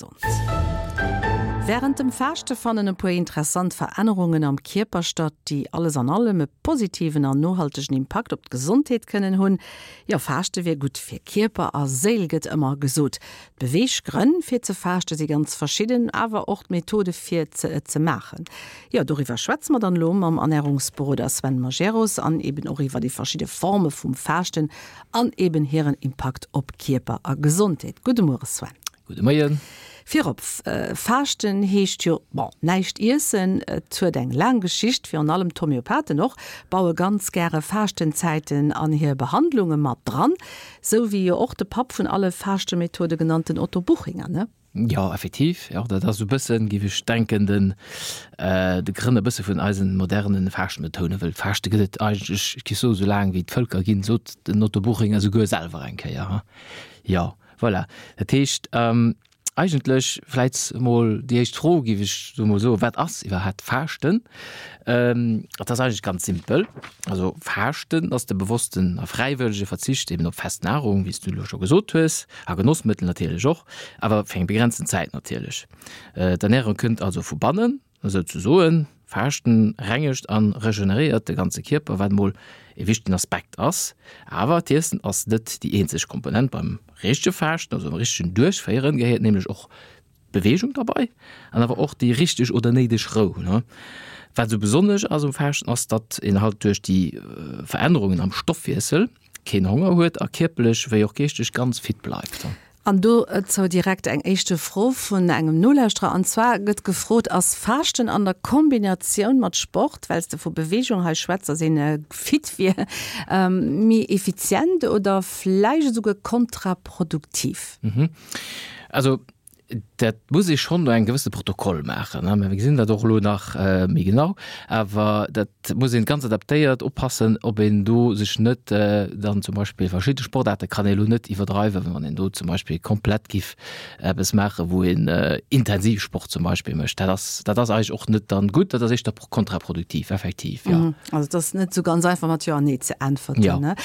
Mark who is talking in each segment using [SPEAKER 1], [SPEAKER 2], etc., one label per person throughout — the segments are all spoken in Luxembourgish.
[SPEAKER 1] Gesond. Wärend dem Faaschte fannen e puer interessant Verännerungen am Kierper statt, déi alles an allem e positiven an nohaltegen Impakt op d'Gesondheet kënnen hunn. Jo, Faaschte wier gutt fir Kierper a Séil, gëtt ëmmer gesot. D'Beweeggrënn fir ze faaschte si ganz verschidden, awer och d'Methode fir ze et ze maachen. Jo, doriwwer schwätze mer dann elo mam Ernärungsberoder Sven Majerus an eben och iwwer déi verschidde Forme vum Faaschten an eben hiren Impakt op Kierper a Gesondheet. Gudde Muere Sven.
[SPEAKER 2] Gudde Moien.
[SPEAKER 1] Virop, Faaschten heescht jo, bon, näischt iessen. Et huet eng laang Geschicht, virun allem d'Homöopathen och baue ganz gäre Faaschtenzäiten an hir Behandlunge mat dran. Sou wéi jo och de Papp vun alle Faaschtemethode genannten Otto Buchinger, ne?
[SPEAKER 2] Jo, effektiv, jo, dat ass esou e bëssen, géif ech denken, den de Grënner e bësse vun eisen modernen Faaschtmethoden, wëll Faaschte gëtt et eigentlech, ech géif soen, esou laang wéi d'Vëlker ginn, sot den Otto Buchinger esouguer selwer eng Kéier, ha? Jo, voilà. Dat heescht, Eigentlech vläit mol déi éischt Fro, géif ech sou mol soen, Wat ass iwwerhaapt Faaschten? Et ass eigentlech ganz simpel. Also Faaschten ass de bewossten a fräiwëllege Verzicht eben op fest Nahrung, wéi s du elo scho gesot hues, a Genossmëttel natierlech och, awer fir eng begrenzten Zäit natierlech. D'Ernärung kënnt also vu bannen. Esou ze soen, Faaschten rengegt an regeneréiert de ganze Kierper, wat mol e wichtegen Aspekt ass. Awer d'Iessen ass net déi eenzeg Komponent. Beim richtege Faaschten, also beim richtegen Duerchféieren, gehéiert nämlech och d'Beweegung derbei an awer och déi richteg oder néideg Rou. Wat esou besonnesch ass um Faaschten ass, datt een halt duerch déi Verännerungen am Stoffwiessel keen Honger huet a kierperlech wéi och geeschteg ganz fit bleift.
[SPEAKER 1] An dozou direkt eng éischte Fro vun engem Nolauschterer. An zwar gëtt gefrot, Ass Faaschten an der Kombinatioun mat Sport, well s de vu Beweegung hei schwätz, dass een fit wier, méi effizient oder vläicht esouguer kontraproduktiv?
[SPEAKER 2] Also Dat muss ee schonn no engem gewëssene Protokoll maachen, mä mir gesinn dat och elo nach méi genau. Awer dat muss een ganz adaptéiert oppassen, ob een do sech net dann zum Beispill verschidde Sportaarte kann ee elo net iwwerdreiwen, wann een do zum Beispill komplett giff eppes maachen, wou een intensiv Sport zum Beispill mécht. Dat ass, dat ass eigentlech och net dann gutt, dat ass éischter kontraproduktiv, effektiv, jo.
[SPEAKER 1] Also et ass net esou ganz einfach mat Jo an Nee ze äntwerten, ne?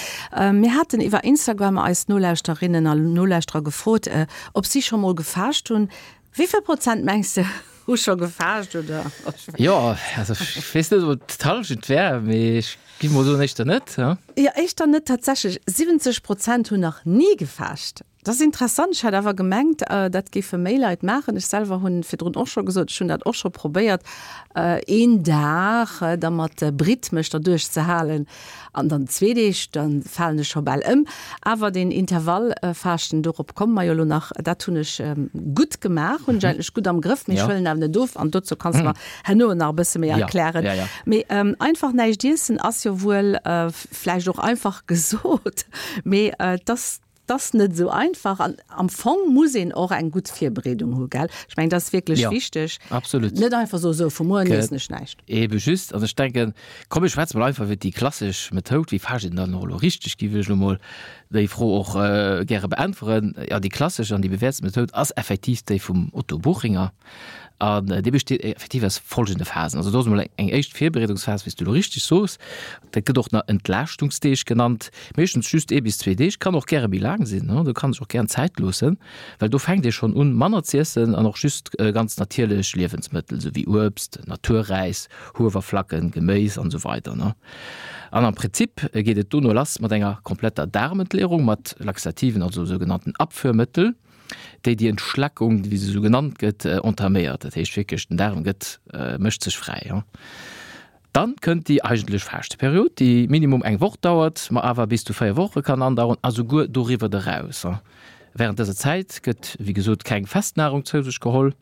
[SPEAKER 1] Mir haten iwwer Instagram eis Nolauschterinnen a Nolauschterer gefrot, Ob si scho mol gefaascht hunn? Wéi vill Prozent mengs de hu scho gefaascht oder?
[SPEAKER 2] Jo, also ech weess net, ob et d'Hallschent wär, mee ech géif mol soen, éischter net.
[SPEAKER 1] Jo, éischter net tatsächlech. 70 Prozent hunn nach ni gefaascht. Dat ass interessant. Ech hat awer gemengt, dat géife méi Leit maachen. Ech selwer hunn virdrun och scho gesot, ech hunn dat och scho probéiert, een Dag da mat Britt mech derduerch ze halen. An dann zwee Deeg, da falen ech scho bal ëm. Awer deen Intervallfaaschten, dorop komme mer jo elo nach, dat hunn ech gutt gemaach, hunn ech eigentlech gutt am Grëff, mee ech huelen awer net of. An dozou kanns de mer herno nach e bësse méi erklären. Mee einfach näischt iessen ass jo wuel vläicht och einfach gesot, mee et ass 't ass net esou einfach an am Fong muss een och eng gutt Virbereedung hu, gell? Ech mengen, dat ass wierklech
[SPEAKER 2] Ja,
[SPEAKER 1] wichteg.
[SPEAKER 2] absolut.
[SPEAKER 1] Net einfach soen, sou, vu muer un iessen ech näischt.
[SPEAKER 2] Ebe just. An ech denken, komm mir schwätze mol einfach iwwer déi klassesch Methoud, wéi faascht een dann och elo richteg, géif ech elo mol déi Fro och gäre beäntweren. Jo, déi klassesch an déi bewäertst Methoud ass effektiv déi vum Otto Buchinger. An déi besteet effektiv aus folgende Phasen. Also do ass emol eng éischt Virbereedungsphas, wéi s du elo richteg soos. Dat gëtt och nach Entlaaschtungsdeeg genannt, meeschtens just ee bis zwee Deeg, kann och gäre méi laang sinn, do kann sech och gären Zäit loossen, well do fänkt ee schonn un, manner z'iessen an och just ganz natierlech Liewensmëttel, esou wéi Uebst, Naturräis, Huewerflacken, Geméis an esou weider. An am Prinzip geet et dono lass mat enger kompletter Daarmentleerung mat Laxativen, also sougenannten Abführmëttel. déi déi Entschlackung, wéi se esou genannt gëtt, entaméiert. Dat heescht wierklech, den Daarm gëtt, mécht sech fräi. Dann kënnt déi eigentlech Faaschteperiod, déi minimum eng Woch dauert, ma awer bis zu 4 Woche kann andauern a souguer doriwwer eraus. Wärend dëser Zäit gëtt, wéi gesot, keng fest Nahrung zou sech geholl.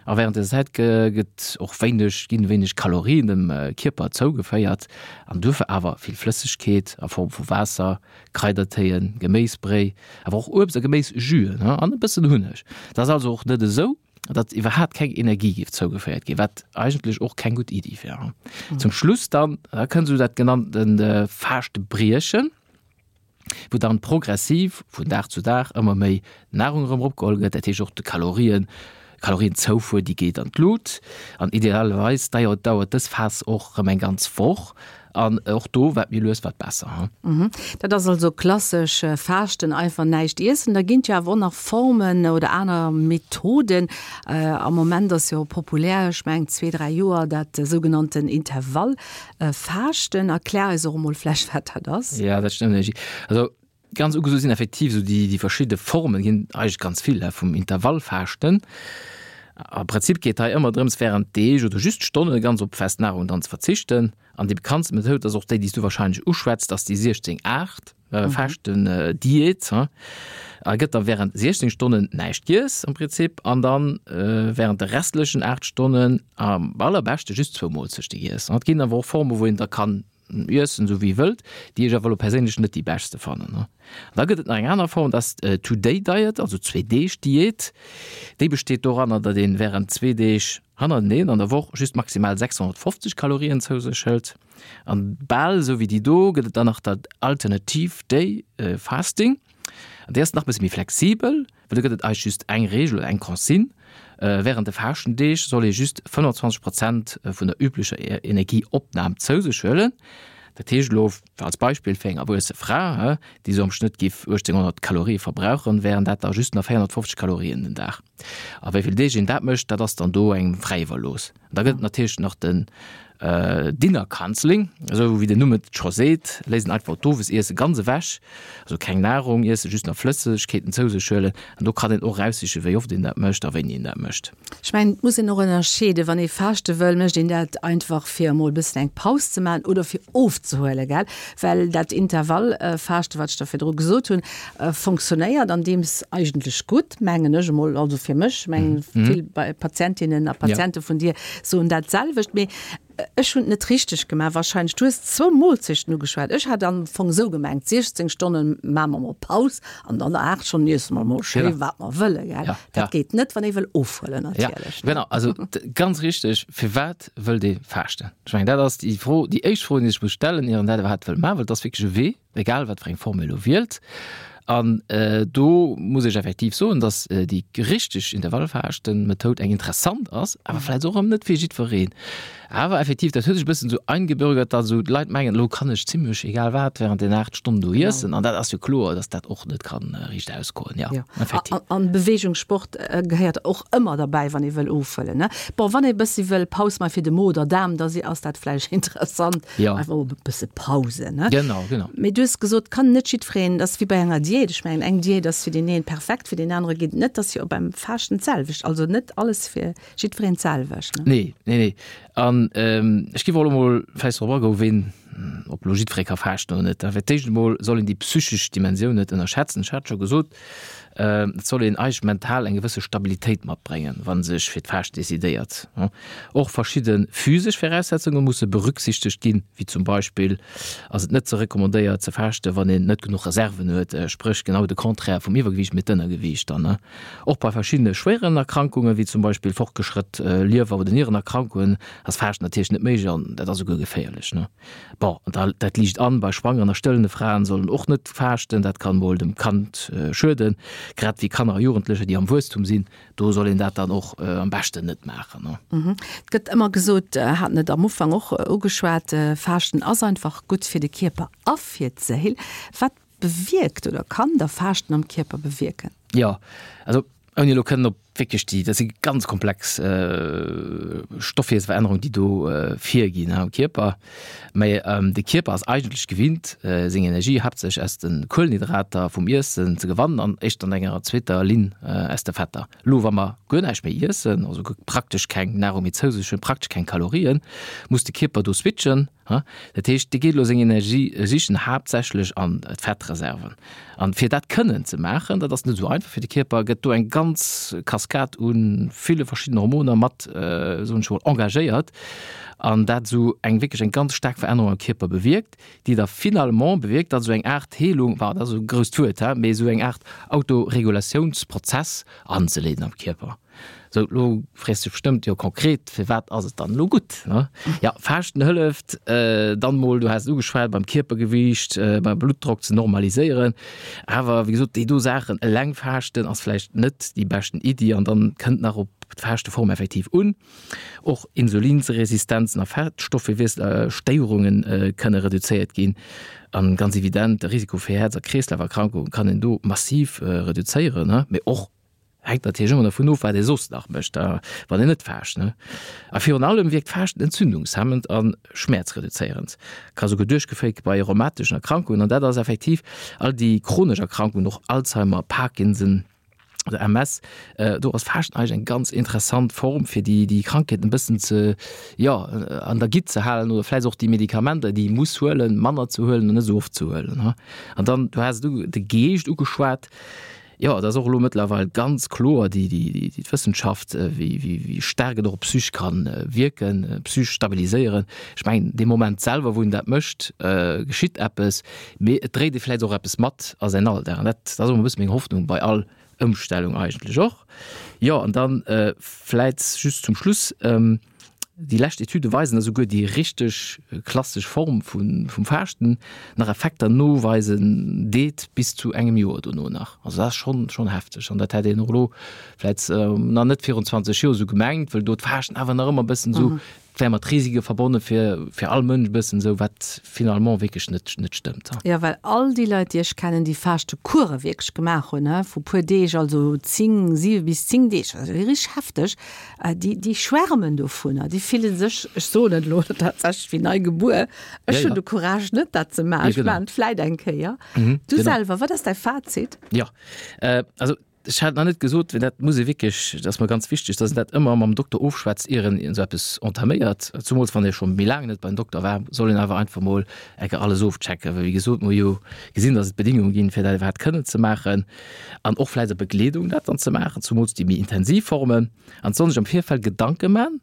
[SPEAKER 2] A wärend dëser Zäit gëtt och wéineg, ginn wéineg Kalorien dem Kierper zougeféiert an duerfir awer vill Flëssegkeet a Form vu Waasser, Kraidertéien, Geméisbréi, awer och Uebst a Geméisjüen an e bëssen Hunneg. Et ass also och net esou, datt iwwerhaapt keng Energie géif zougeféiert ginn, wat eigentlech och keng gutt Iddi wär. Zum Schluss dann, da kënnt esou dat genannte Faaschte-Briechen. wou dann progressiv vun Dag zu Dag ëmmer méi Nahrung erëm eropgeholl gëtt, dat heescht och de Kalorien, Kalorienzoufuer, déi geet an d'Lut. An idealerweis dauert dës Phas och erëm eng ganz Woch. An och do, wat méi lues, wat besser.
[SPEAKER 1] Dat ass also klassesch Faaschten, einfach näischt iessen. Da ginn et jo awer och nach Formen oder aner Methoden. Am Moment ass jo populär, ech mengen zwee, dräi Joer, dat sougenannten Intervallfaaschten. Erklär eis och emol vläicht, wat dat ass.
[SPEAKER 2] Jo, dat stëmmt, Angie. Also ganz ugeso sinn effektiv esou déi verschidde Formen, ginn eigentlech ganz vill, vum Intervallfaaschten. Am Prinzip geet hei ëmmer drëms, wärend Deeg oder just Stonne ganz op fest Nahrung dann ze verzichten. An déi bekanntste Methoud ass och déi, déi s du wahrscheinlech uschwätzt, ass déi 16, 8 Faaschten-Diät. A gëtt da wärend 16 Stonnen näischt giess am Prinzip an dann wärend de restlechen 8 Stonnen am allerbeschte just zwou Moolzechte giess. Et ginn awer och Formen, wou een da kann iessen, esou wéi ee wëllt, déi ech awer elo perséinlech net déi beschte fannen. An da gëtt et nach eng aner Form, dat ass d'Two-Day-Diet, also Zwee-Deeg-Diät. Déi besteet doranner, datt een wärend zwee Deeg hannerteneen an der Woch just maximal 650 Kalorien zou sech hëlt. An bal esou wéi déi do gëtt et dann nach dat Alternative Day Fasting. An déi ass nach e bësse méi flexibel, well do gëtt et eigentlech just eng Reegel oder eng Consigne, Wärend de Faaschtendeeg soll ee just 25 Prozent vun der üblecher Energieopnam zou sech huelen. Dat heescht elo als Beispill fir eng erwuesse Fra, déi esou am Schnëtt giff 1800 Kalorie verbrauchen, wären dat da just nach 450 Kalorien den Dag. A wéi vill Deeg een dat mécht, dat ass dann do engem fräi iwwerlooss. An da gëtt et natierlech nach den Dinner Cancelling, esou wéi den Numm et scho seet, léisst een einfach d'Owesiesse ganz ewech, also keng Nahrung iessen, just nach Flëssegkeeten zou sech huelen. An do kann een och eraussichen, wéi oft een dat mécht a wéini een dat mécht.
[SPEAKER 1] Ech mengen, et muss een och ënnerscheeden, wann ee faaschte wëll, mécht een dat einfach fir emol e bëssen eng Paus ze maachen oder fir ofzehuelen, gell? Well dat Intervallfaaschte, wat ech der virdru gesot hunn, Fonctionnéiert an deems eigentlech gutt, mengen ech emol, also fir mech, mengen vill Patientinnen a Patiente vun dir soen dat selwecht, mee ech hunn et net richteg gemaach wahrscheinlech. Du hues zwou Moolzechten ugeschwat, ech hat am Fong esou gemengt, 16 Stonne maache mer mol Paus an dann 8 Stonnen iesse mer mol schéi wat mer wëlle, gell? Dat geet net, wann ee wëll ofhuelen natierlech.
[SPEAKER 2] Genau, also ganz richteg, firwat wëllt ee faaschten? Ech mengen dat ass déi Fro, déi éischt Fro, déi ee sech muss stellen, ier een dat iwwerhaapt wëll maachen, well et ass wierklech e Wee. egal wat fir eng Form ee lo wielt. An do muss ech effektiv soen, datt déi richteg Intervallfaaschten-Methoud eng interessant ass, awer vläicht och erëm net fir jiddwereen. Awer effektiv, dat huet sech e bëssen esou eingebürgert, datt esou d'Leit mengen, elo kann ech zimlech egal wat während den 8 Stonnen do iessen. An dat ass jo kloer, datt dat och net kann riicht ausgoen. Jo,
[SPEAKER 1] effektiv. An Bewegung, Sport gehéiert och ëmmer derbäi, wann ee wëll ofhuelen, ne? Bon, wann ee bëssi wëll Paus maache fir de Mo oder Daarm, da ass dat vläicht interessant.
[SPEAKER 2] Ja.
[SPEAKER 1] Einfach e bësse Pause,
[SPEAKER 2] ne? Genau, genau.
[SPEAKER 1] Mee du hues gesot, kann net jiddwereen, dat ass wéi bei enger Diät. Ech mengen, eng Diät ass fir deen een perfekt, fir deen anere geet et net. Dat ass jo och beim Faaschten d'selwecht. Also net alles fir jiddwereen d'selwecht,
[SPEAKER 2] ne? Nee, nee, nee. An ech géif och elo mol vläicht drop agoen, ween, ob elo jiddweree ka faaschten oder net. Fir d'éischt emol soll een déi psychesch Dimensioun net ënnerschätzen. Ech hat scho gesot, Et soll een eigentlech mental eng gewësse Stabilitéit matbréngen, wa sech fir d'Faascht decidéiert. Och verschidde physesch Viraussetzunge musse berücksichtegt ginn, wéi zum Beispill ass et net ze recommandéiert ze faaschten, wann een net genuch Reserven huet, spréch genau de Contraire vum Iwwergewiicht, mee d'Ënnergewiicht dann. Och bei verschiddene schwéieren Erkrankungen, wéi zum Beispill fortgeschrëtt Liewer oder Nierenerkrankungen, ass Faaschten natierlech net méiglech an dat ass esouguer geféierlech. Bon, an dat liicht an, bei schwangeren a stëllende Fraen sollen och net faaschten, dat kann mol dem Kand schueden, grad wéi Kanner a Jugendlecher, déi am Wuesstum sinn, do soll een dat dann och am beschten net maachen.
[SPEAKER 1] Et gëtt ëmmer gesot, haten et am Ufank och ugeschwat, Faaschten ass einfach gutt fir de Kierper a fir d'Séil. Wat bewierkt oder kann da Faaschten am Kierper bewierken?
[SPEAKER 2] Jo, also ouni elo kënnen op wierklech déi, dat si ganz komplex Stoffwiesselverännerungen, déi do virginn am Kierper. Mä de Kierper ass eigentlech gewinnt, seng Energie haaptsächlech aus de Kuelenhydrater vum Iessen ze gewannen an éischt an enger zweeter Linn aus de Fetter. Elo wa mer guer näischt méi iessen, also praktesch keng Nahrung méi zou sech hunn, praktesch keng Kalorien, muss de Kierper do switchen. Dat heescht, dee geet elo seng Energie sichen, haaptsächlech an d'Fettreserven. An fir dat kënnen ze maachen, dat ass net esou einfach fir de Kierper, gëtt do eng ganz Kaskad u ville verschiddenen Hormoner mat, soen ech emol, engagéiert an dat esou eng wierklech eng ganz staark Verännerung am Kierper bewierkt, déi da finalement bewierkt, datt esou eng Aart Heelung, enfin dat ass e grousst Wuert, mee esou eng Aart Autoregulatiounsprozess anzeleeden am Kierper. Sou, lo frees dech bestëmmt, jo konkret, firwat ass et dann elo gutt, ne? Ja, Faaschten hëlleft dann mol, du has et ugeschwat, beim Kierpergewiicht, beim Bluttdrock ze normaliséieren. Awer wéi gesot, déi do Saachen eleng faaschten ass vläicht net déi beschten Iddi an dann kënnt nach op. d'Faaschteform effektiv un. Och Insulinsresistenzen a Fettstoffwiesselstéierunge kënne reduzéiert ginn. An ganz evident, de Risiko fir Häerz a Kreeslaferkrankunge kann een do massiv reduzéieren. Mee och hänkt natierlech ëmmer dervun of, wat ee soss nach mécht, wann een net faascht. A virun allem wierkt Faaschten entzündungshemmend a schmäerzreduzéierend, ka souguer duerchgeféiert gi bei rheumateschen Erkrankungen. An dat ass effektiv all déi chronesch Erkrankungen, och Alzheimer, Parkinson, oder MS, do ass Faaschten eigentlech eng ganz interessant Form, fir déi, déi Krankheeten e bëssen ze, jo, an der Gitt ze halen oder vläicht och déi Medikamenter, déi ee muss huelen, manner ze huelen an net esou oft ze huelen. An dann, du has et u, de Geescht ugeschwat, jo, et ass och elo mëttlerweil ganz kloer, déi, déi, déi d'Wëssenschaft, wéi, wéi, wéi staark et och op d'Psych kann wierken, d'Psych stabiliséieren. Ech mengen, dee Moment selwer, wou een dat mécht, geschitt eppes. Mee et dréit ee vläicht och eppes mat a säin Alldag. An dat ass och e bësse meng Hoffnung bei all Ëmstellung eigentlech och. Jo, an dann vläicht just zum Schluss, Déi lescht Etüde weisen, dass esouguer déi richteg klassesch Form vum Faaschten nach Effekter noweisen deet, bis zu engem Joer dono nach. Also dat ass schonn, schonn hefteg. An dat hätt een och elo vläicht nach net virun 20 Joer esou gemengt, wëll do d'Faaschten awer nach ëmmer e bëssen esou Et wär mat Risike verbonne fir, fir all Mënsch e bëssen esou, wat finalement wierklech net, net stëmmt.
[SPEAKER 1] Jo, well all déi Leit, déi ech kennen, déi Faaschtekuere wierklech gemaach hunn, he, vu puer Deeg, also 10, 7 bis 10 Deeg, also richteg hefteg, déi, déi schwärmen dovunner, déi fille sech, ech soen et elo tatsächlech, wéi nei gebuer. Ech hunn de Courage net, dat ze maachen. Ech maachen et vläit eng Kéier. Du selwer, wat ass däi Fazit?
[SPEAKER 2] Jo, also Ech hat nach net gesot, well dat muss ee wierklech, dat ass mer ganz wichteg, dass een dat ëmmer mam Dokter ofschwätzt, ier een esou eppes entaméiert. Zumools wann ee scho méi laang net beim Dokter war, soll een awer einfach mol eng Kéier alles ofchecken. Well wéi gesot, mer hu jo gesinn, dass et Bedingungen ginn, fir dat iwwerhaapt kënnen ze maachen an och vläicht a Begleedung dat dann ze maachen, zumools déi méi intensiv Formen. An et soll sech am Virfeld Gedanke man,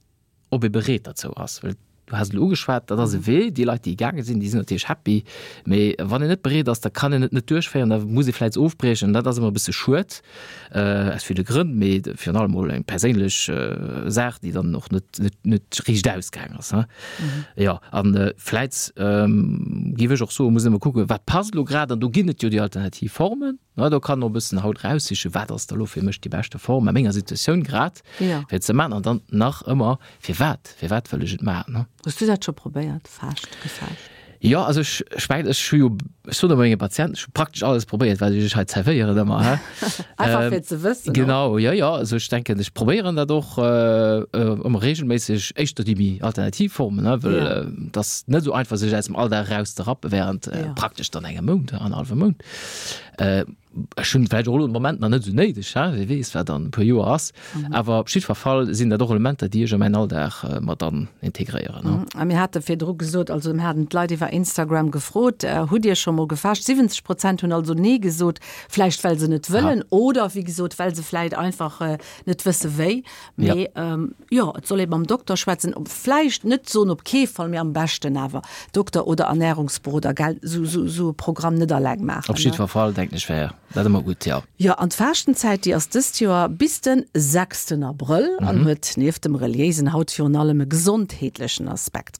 [SPEAKER 2] ob ee bereet derzou ass, well du has et elo ugeschwat, dat ass e Wee, déi Leit, déi gaange sinn, déi sinn natierlech happy, mee wann een net bereet ass, da kann een et net duerchféieren, da muss ee vläicht ofbriechen. Dat ass ëmmer e bësse schued, aus ville Grënn, mee virun allem mol eng perséinlech Saach, déi dann och net, net, net riicht ausgaang ass. Jo, a vläicht géif ech och soen, muss een ëmmer kucken, wat passt elo grad, an do ginn et jo déi alternativ Formen. Na, do kann och e bëssen haut raussichen, wat ass da lo fir mech déi beschte Form a menger Situatioun grad,
[SPEAKER 1] Ja.
[SPEAKER 2] fir et ze maachen. An dann nach ëmmer, firwat, firwat wëll ech et maachen, ne?
[SPEAKER 1] Hues du dat scho probéiert, Faascht, gefaascht?
[SPEAKER 2] Jo, also ech, ech mengen, ech hu jo, ech soen ëmmer menge Patienten, ech hu praktesch alles probéiert, wat ech iech hei zerwéieren ëmmer, he.
[SPEAKER 1] Einfach fir ze wëssen och.
[SPEAKER 2] Genau, jo, jo, also ech denken, ech probéieren dat och ëmmer reegelméisseg, éischter déi méi alternativ Formen, ne, well
[SPEAKER 1] Ja.
[SPEAKER 2] et ass net esou einfach, sech aus dem Alldag erauszerappe während
[SPEAKER 1] Ja.
[SPEAKER 2] praktesch dann engem Mount, annerhallwem Mount. Ech hunn vläicht och elo de Moment nach net esou néideg, he, wie weess, wat an e puer Joer ass. Awer op jiddwer Fall sinn dat och Elementer, déi ech a mäin Alldag mat an integréieren,
[SPEAKER 1] he. A mir hate virdru gesot, also mir haten d'Leit iwwer Instagram gefrot, Hutt Dir scho mol gefaascht? 70 Prozent hunn also Nee gesot, vläicht well se net wëllen oder wéi gesot, well se vläicht einfach net wësse wéi. Mee jo, et soll ee mam Dokter schwätzen, vläicht net soen op kee Fall, mee am beschten awer Dokter oder Ernährungsberoder, gell, sou sou e Programm net alleng maachen.
[SPEAKER 2] Op jiddwer Fall denken ech wär dat ëmmer gutt, jo.
[SPEAKER 1] Jo, an d'Faaschtenzäit, déi ass dëst Joer bis de sechsten Abrëll an huet nieft dem reliéisen haut virun allem e gesondheetlechen Aspekt.